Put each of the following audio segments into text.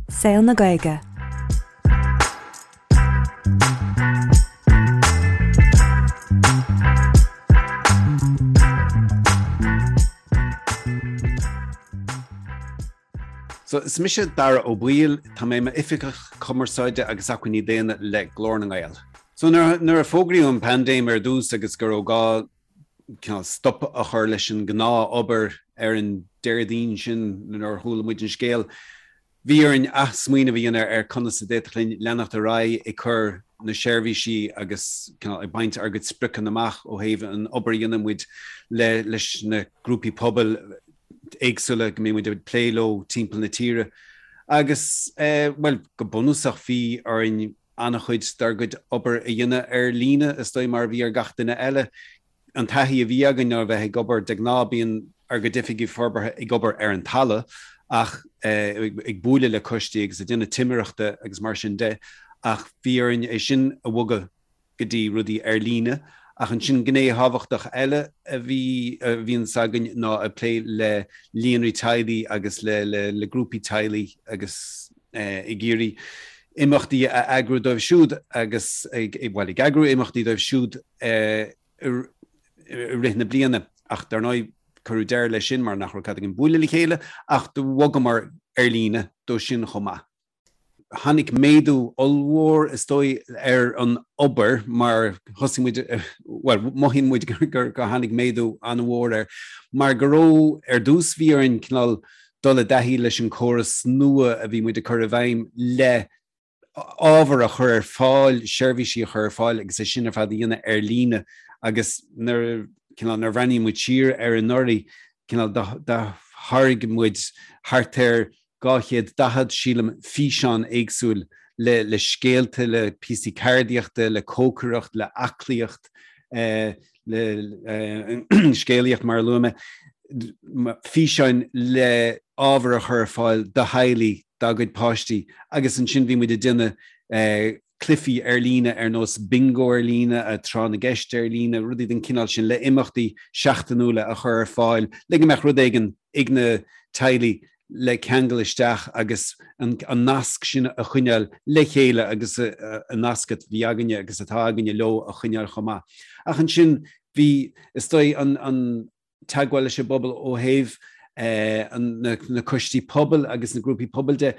Saol na Gaeilge. So, is mise Dara Ó Baoill, tá mé i m'Oifigeach Cumarsáide agus Acmhainní Daonna le Glór na nGael. So, nuair a fógraíodh an paindéim ar dtús agus go raibh gá cineál stop a chur leis an gnáth-obair ar an Déardaoin sin nuair a chuala muid an scéal, bhí orainn athsmaoineamh a dhéanamh ar conas a d'fhéadfadh linn leanacht ar aghaidh ag cur na seirbhísí agus cineál ag baint ár gcuid spriocanna amach ó thaobh an obair a dhéanann muid le leis na grúpaí pobail éagsúla go mbíonn muid ag plé leo timpeall na tíre. Agus, bhuel, go bunúsach bhí orainn an-chuid dár gcuid obair a dhéanamh ar líne, is dóigh, mar a bhí ar gach duine eile. An taithí a bhí againn ná a bheith ag obair, de ghnáth bíonn ár gcuid oifigigh forbartha ag obair ar an talamh ach ag bualadh le coistí agus ag déanamh timireachta agus mar sin de, ach bhí orainn é sin a bhogadh go dtí rudaí ar líne. Ach ansin gné thábhachtach eile a bhí, a bhíonns againn ná ag plé le líonraí teaghlaigh agus le, le, le grúpaí teaghlaigh agus ag iarraidh imeachtaí a eagrú dóibh siúd agus ag, bhuel, ag eagrú imeachtaí dóibh siúd i rith na bliana. Ach dar ndóigh cuireadh deireadh leis sin mar nach raibh cead againn bualadh le chéile ach do bhogamar ar líne dó sin chomh maith. Tháinig méadú ollmhór, is dóigh, ar an obair mar thosaigh muid, bhuel, mothaíonn muid gur tháinig méadú an-mhór air mar go raibh, ar dtús bhí orainn cineál dul i dtaithí leis an córas nua a bhí muid ag cur i bhfeidhm le ábhar a chur ar fáil, seirbhísí a chur ar fáil agus é sin ar fad a dhéanamh ar líne agus nuair, cineál, nuair a bhreathnaíonn muid siar ar anuraidh, cineál, do tháirg muid thart ar 240, sílim, físeán éagsúil le le scéalta, le píosaí ceardaíochta, le cócaireacht, le aclaíocht, le scéalaíocht mar a luaigh mé, físeáin le ábhar a chur ar fáil do theaghlaigh dá gcuid páistí agus ansin bhí muid ag déanamh cluichí ar líne ar nós bingo ar líne, tráth na gceist ar líne, rudaí den chineál sin le imeachtaí seachtainiúla a chur ar fáil le go mbeadh rud éigin ag na teaghlaigh le ceangal isteach agus an nasc sin a choinneáil le chéile agus an nasc a bhí againne agus atá againne leo a choinneáil chomh maith. Ach ansin bhí, is dóigh, an teagmháil leis an bpobal ó thaobh na coistí pobail agus na grúpaí pobail de.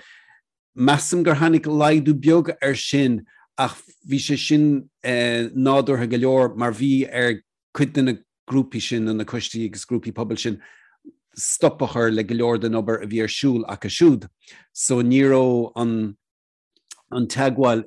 Measaim gur tháinig laghdú beag air sin ach bhí sé sin nádúrtha go leor mar bhí ar cuid de na grúpaí sin, nó na coistí agus grúpaí pobail sin, stop a chur le go leor den obair a bhí ar siúl acu siúd. So ní raibh an an teagmháil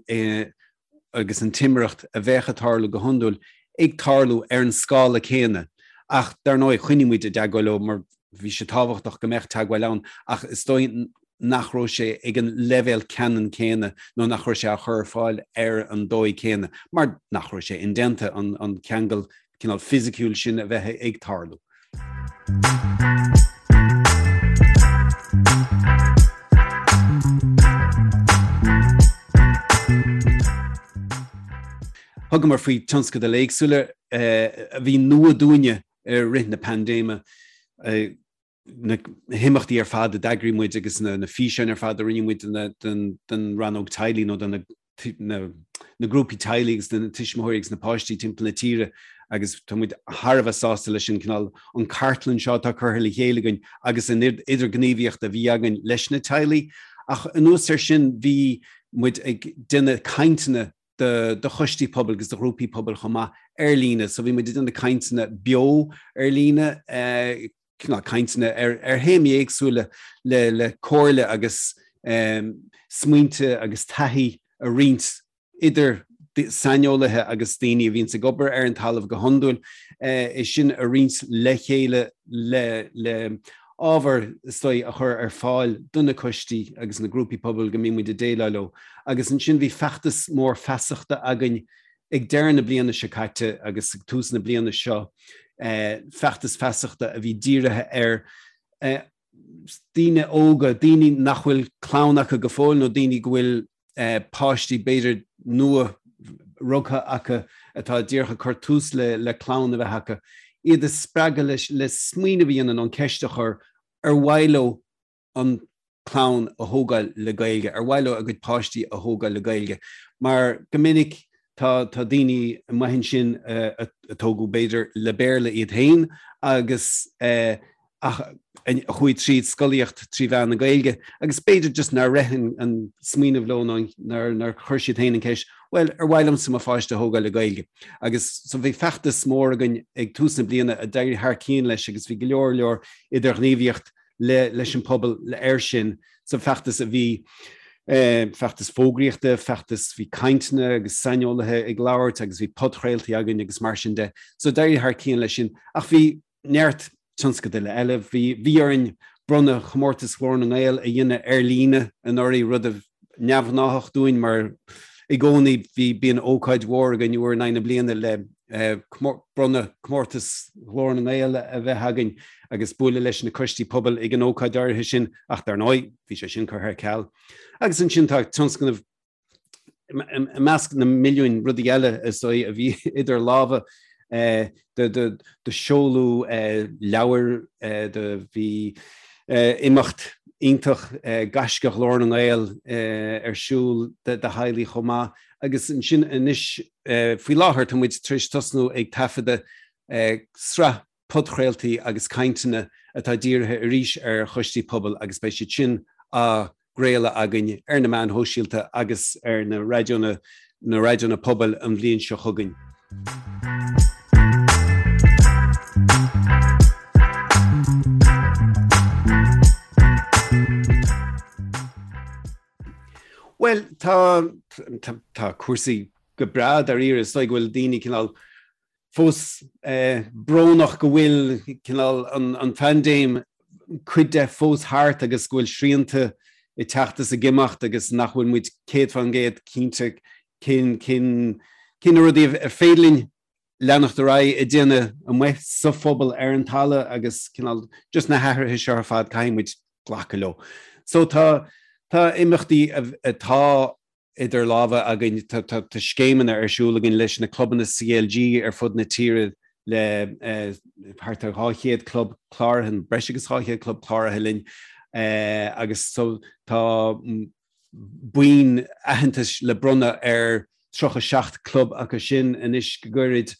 agus an timireacht a bheadh ag tarlú go hiondúil ag tarlú ar an scála céanna. Ach dar ndóigh choinnigh muid i dteagmháil leo mar bhí sé tábhachtach go mbeadh teagmháil ann ach is dóigh nach raibh sé ag an leibhéal ceannann céanna nó nach raibh sé á chur ar fáil ar an dóigh céanna mar nach raibh sé indéanta an ceangal cineál fisiciúil sin a bheith ag tarlú. Thugamar faoi tionscadail éagsúla a bhí nua dúinne i rith na paindéime. Na himeachtaí ar fad a d'eagraigh muid agus na físeáin ar fad a rinne muid don rannóg teaghlaigh nó do na grúpaí teaghlaigh agus na tuismitheoirí agus na páistí timpeall na tíre agus tá muid thar a bheith sásta leis an cineál an cartlann seo atá curtha le chéile againn agus an idirghníomhaíocht a bhí againn leis na teaghlaigh. Ach anuas air sin bhí muid ag déanamh cainteanna do do choistí pobail agus do ghrúpaí pobail chomh maith ar líne. So bhí muid ag déanamh cainteanna beo ar líne, cineál cainteanna ar ar théamaí éagsúla le le comhairle agus smaointe agus taithí a roinnt idir saineolaithe agus daoine a bhíonns ag obair ar an talamh go hiondúil, é sin a roinnt le chéile le le ábhar is dóigh a chur ar fáil do na coistí agus na grúpaí pobail go mbíonn muid ag déileáil leo. Agus ansin bhí feachtas mór feasachta againn ag deireadh na bliana seo caite agus ag tús na bliana seo, feachtas feasachta a bhí dírithe ar daoine óga, daoine nach bhfuil clann acu go fóill nó daoine go bhfuil páistí b'fhéidir nua rugtha acu atá díreach ag cur tús le clann a bheith acu, iad a spreagadh le smaoineamh a dhéanamh nó an ceist a chur ar mhaith leo an. clann a thógáil le Gaeilge, ar mhaith leo a gcuid páistí a thógáil le Gaeilge, mar go minic tá tá daoine amuigh ansin a tógadh b'fhéidir le Béarla iad féin agus ach a chuaigh tríd scolaíocht trí mheán na Gaeilge agus b'fhéidir just nár rith an smaoineamh leo nó nár chuir siad féin an ceist, bhuel, ar mhaith liomsa mo pháiste a thógáil le Gaeilge? Agus so bhí feachtas mór againn ag tús na bliana a d'éirigh thar cionn leis agus bhí go leor leor idirghníomhaíocht le leis an pobal air sin sa feachtas a bhí feachtas fógraíochta, feachtas bhí cainteanna agus saineolaithe ag labhairt agus bhí podchraoltaí againn agus mar sin de. So d'éirigh thar cionn leis sin ach bhí neart tionscadail eile. Bhí bhí orainn bronnadh chomórtas Ghlór na nGael a dhéanamh ar líne anuraidh, rud a neamhghnáthach dúinn mar i gcónaí bhí bíonn ócáid mhór againn uair in aghaidh na bliana le bronnadh comórtas Ghlór na nGael a bheith againn agus bualadh leis na coistí pobail ag an ócáid áirithe sin ach dar ndóigh bhí sé sin curtha ar ceal. Agus ansin tá tionscnamh i measc na milliúin rudaí eile is dóigh a bhí idir lámha do seoladh leabhair, do bhí imeacht iontach Gaisce Ghlór na nGael ar siúl do theaghlaigh chomh maith agus ansin anois faoi láthair tá muid tar éis tosnú ag taifeadadh sraith podchraoltaí agus cainteanna atá dírithe arís ar choistí pobail agus beidh siad sin á gcraoladh againn ar na meáin shóisialta agus ar na raidiónna na raidiónna pobail an bhliain seo chugainn. Bhuel, tá tá cúrsaí go breá dáiríre. Is dóigh go bhfuil daoine cineál fós brónach go bhfuil cineál an phaindéim cuid de fós thart agus go bhfuil srianta ag teacht is ag imeacht agus nach bhfuil muid 100% cinnte cén cén cén na rudaí ar féidir linn leanacht ar aghaidh ag déanamh amuigh sa phobal ar an talamh agus cineál just na hathruithe seo ar fad caithfidh muid glacadh leo. So tá tá imeachtaí atá idir lámha againn. Tá scéimeanna ar siúl againn leis na clubanna CLG ar fud na tíre le thart ar 200 club cláraithe, breis agus 200 club cláraithe linn agus so tá boinn aitheantais le bronnadh ar 37 club acu sin anois go gairid.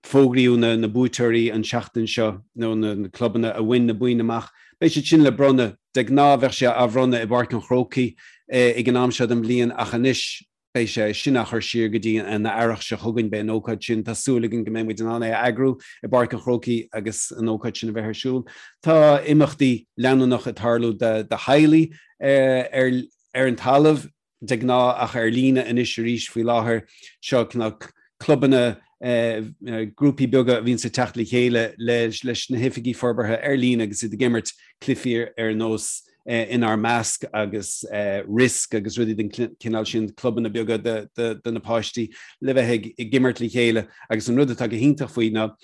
Fógraíodh na buaiteoirí an tseachtain seo, nó na clubanna a bhain na boinn amach. Beidh siad sin le bronnadh. De ghnáth bheadh sé á bhronnadh i bPáirc an Chrócaigh ag an am seo den bhliain ach anois beidh sé sin á chur siar go dtí an earrach seo chugainn. Beidh an ócáid sin, tá súil againn go mbeidh muid in ann é a eagrú i bPáirc an Chrócaigh agus an ócáid sin a bheith ar siúl. Tá imeachtaí leanúnach ag tarlú do theaghlaigh ar an talamh. de ghnáth ach ar líne anois arís faoi láthair. Seo cineál clubanna, grúpaí beaga a bhíonns ag teacht le chéile leis na hoifigigh forbartha ar líne agus iad ag imirt cluichí ar nós Inár Measc agus Risk agus rudaí den chineál sin, clubanna beaga do na páistí le bheith ag imirt le chéile agus an rud atá go hiontach faoi ná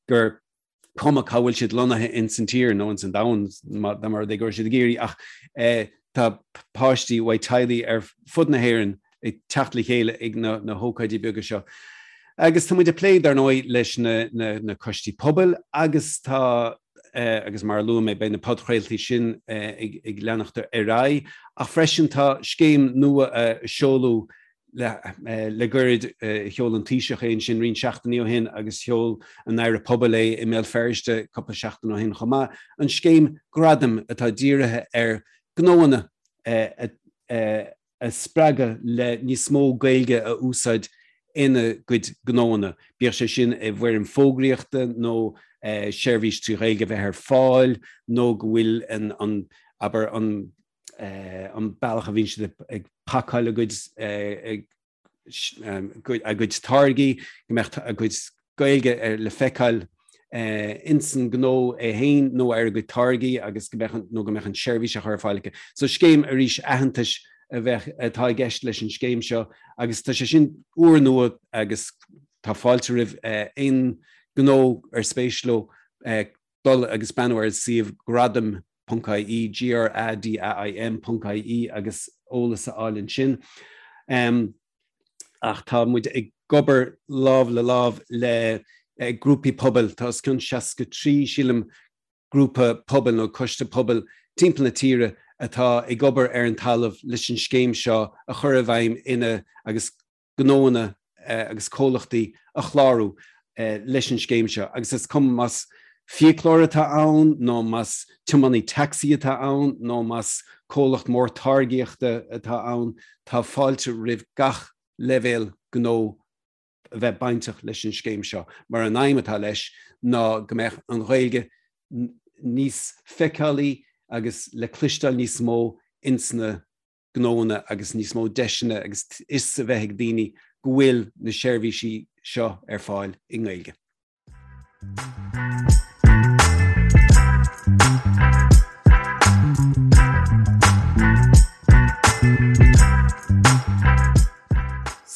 gur cuma cá bhfuil siad lonnaithe ins an tír nó ins an domhan dá mba rud é go raibh siad ag iarraidh ach tá páistí uaidh teaghlaigh ar fud na hÉireann ag teacht le chéile ag na, na hócáidí beaga seo. Agus tá muid ag plé dar ndóigh leis na, na, na coistí pobail agus tá eh, agus mar a luaigh mé beidh na podchraoltaí sin eh, ag, ag leanacht ar aghaidh ach freisin tá scéim nua a seoladh Le gairid, sheol an Taoiseach é ansin roinnt seachtainí ó shin agus sheol an Aire Pobail é i mBéal Feirste cúpla seachtain ó shin chomh maith, an scéim Gradaim atá dírithe ar ghnóanna a spreagadh le níos mó Gaeilge a úsáid ina gcuid gnóanna, bíodh sé sin i bhfoirm fógraíochta nó seirbhís trí Ghaeilge a bheith ar fáil nó go bhfuil an, abair, an an bealach a bhíonn siad ag pacáil a gcuid a gcuid táirgí, go mbeadh a gcuid Gaeilge le feiceáil ins an gnó é féin nó ar a gcuid táirgí agus go mbeadh nó go mbeadh an seirbhís á chur ar fáil acu. So scéim arís aitheantais a bheadh atá i gceist leis an scéim seo agus tá sé sin úrnua agus tá fáilte roimh aon gnó ar spéis leo dul agus breathnú ar an suíomh gradaim ponc ie, G-R-A-D-A-I-M ponc ie agus eolas a fháil ansin. Ach tá muid ag obair lámh le lámh le grúpaí pobail, tá os cionn 63, sílim, grúpa pobail nó coiste pobail timpeall na tíre atá ag obair ar an talamh leis an scéim seo a chur i bhfeidhm ina agus gnóanna agus comhlachtaí a chlárú leis an scéim seo agus is cuma más fiaclóir atá ann nó más tiománaí tacsaí atá ann nó más comhlacht mór táirgíochta atá ann, tá fáilte roimh gach leibhéal gnó a bheith bainteach leis an scéim seo mar an aidhm atá leis ná go mbeadh an Ghaeilge níos feiceálaí agus le cloisteáil níos mó ins na gnóanna agus níos mó deiseanna agus fhios a bheith ag daoine go bhfuil na seirbhísí seo ar fáil i nGaeilge.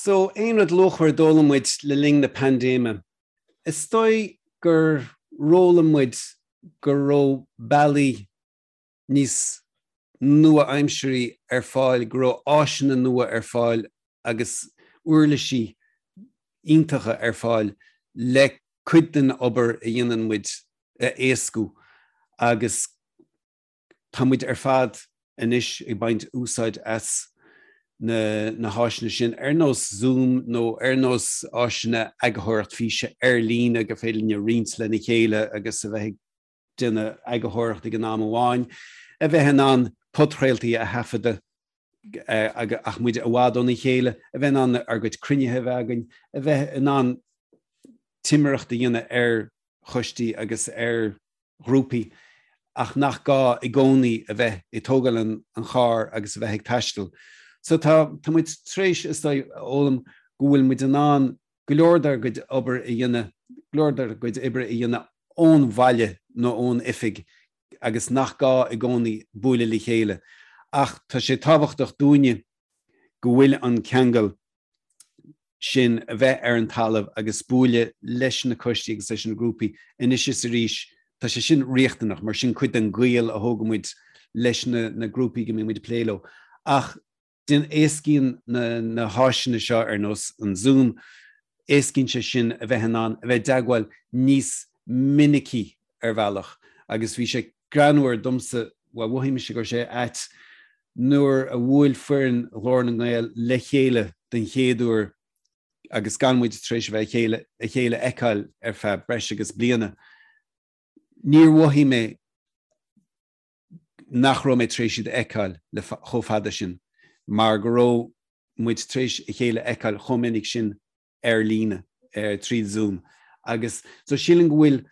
So, aon rud luachmhar a d'fhoghlaim muid le linn na paindéime? Is dóigh gur fhoghlaim muid go raibh bealaí níos nua-aimsirí ar fáil, go raibh áiseanna nua ar fáil agus uirlisí iontacha ar fáil le cuid den obair a dhéanann muid a éascú agus tá muid ar fad anois ag baint úsáid as na na háiseanna sin ar nós Zoom nó ar nós áiseanna eagarthóireacht físe ar líne gur féidir linn roinnt lena chéile agus a bheith ag déanamh eagarthóireacht ag an am amháin, a bheith in ann podchraoltaí a thaifeadadh ach muid i bhfad óna chéile, a bheith in ann ár gcuid cruinnithe a bheith againn, a bheith in ann timireacht a dhéanamh ar choistí agus ar ghrúpaí ach nach gá i gcónaí a bheith ag tógáil an chairr agus a bheith ag taisteal. So tá tá muid tar éis, is dóigh, a fhoghlaim go bhfuil muid in ann go leor dár gcuid obair a dhéanamh, go leor dár gcuid oibre a dhéanamh ón bhaile nó ón oifig agus nach gá i gcónaí bualadh le chéile. Ach tá sé tábhachtach dúinne go bhfuil an ceangal sin a bheith ar an talamh agus bualadh leis na coistí agus leis na grúpaí anois is arís, tá sé sin riachtanach mar sin cuid den ghaol a thógann muid leis na na grúpaí go mbíonn muid ag plé leo. Ach Déan éascaíonn na na háiseanna seo ar nós an Zoom, éascaíonn sé sin a bheith in ann a bheith i dteagmháil níos minicí ar bhealach agus bhí sé greannmhar domsa, bhuel mhothaigh mise go raibh sé ait nuair a bhuail foireann Ghlór na nGael le chéile den chéad uair agus gan muid tar éis a bheith a chéile a chéile a fheiceáil ar feadh breis agus bliana. Níor mhothaigh mé nach raibh mé tar éis iad a fheiceáil le chomh fada sin, mar go raibh muid tar éis a chéile a fheiceáil chomh minic sin ar líne, tríd Zoom. Agus so sílim go bhfuil,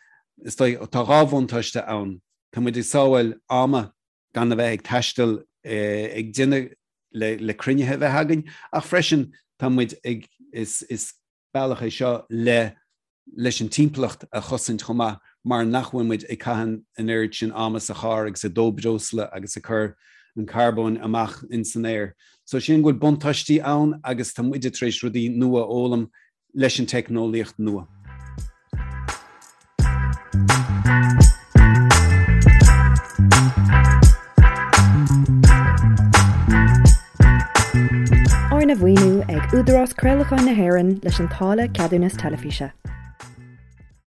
is dóigh, tá dhá bhuntáiste ann. Tá muid ag sábháil ama gan a bheith ag taisteal ag déanamh le le cruinnithe a bheith againn, ach freisin tá muid ag, is, is bealach é seo le leis an timpeallacht a chosaint chomh maith mar nach bhfuil muid ag caitheamh an oiread sin ama sa charr agus ag dó breosla agus ag cur an carbóin amach in san aer. So sílim go bhfuil buntáistí ann agus tá muide tar éis rudaí nua a fhoghlaim leis an teicneolaíocht nua. Arna mhaoiniú ag Údarás Craolacháin na hÉireann leis an táille Ceadúnas Teilifíse.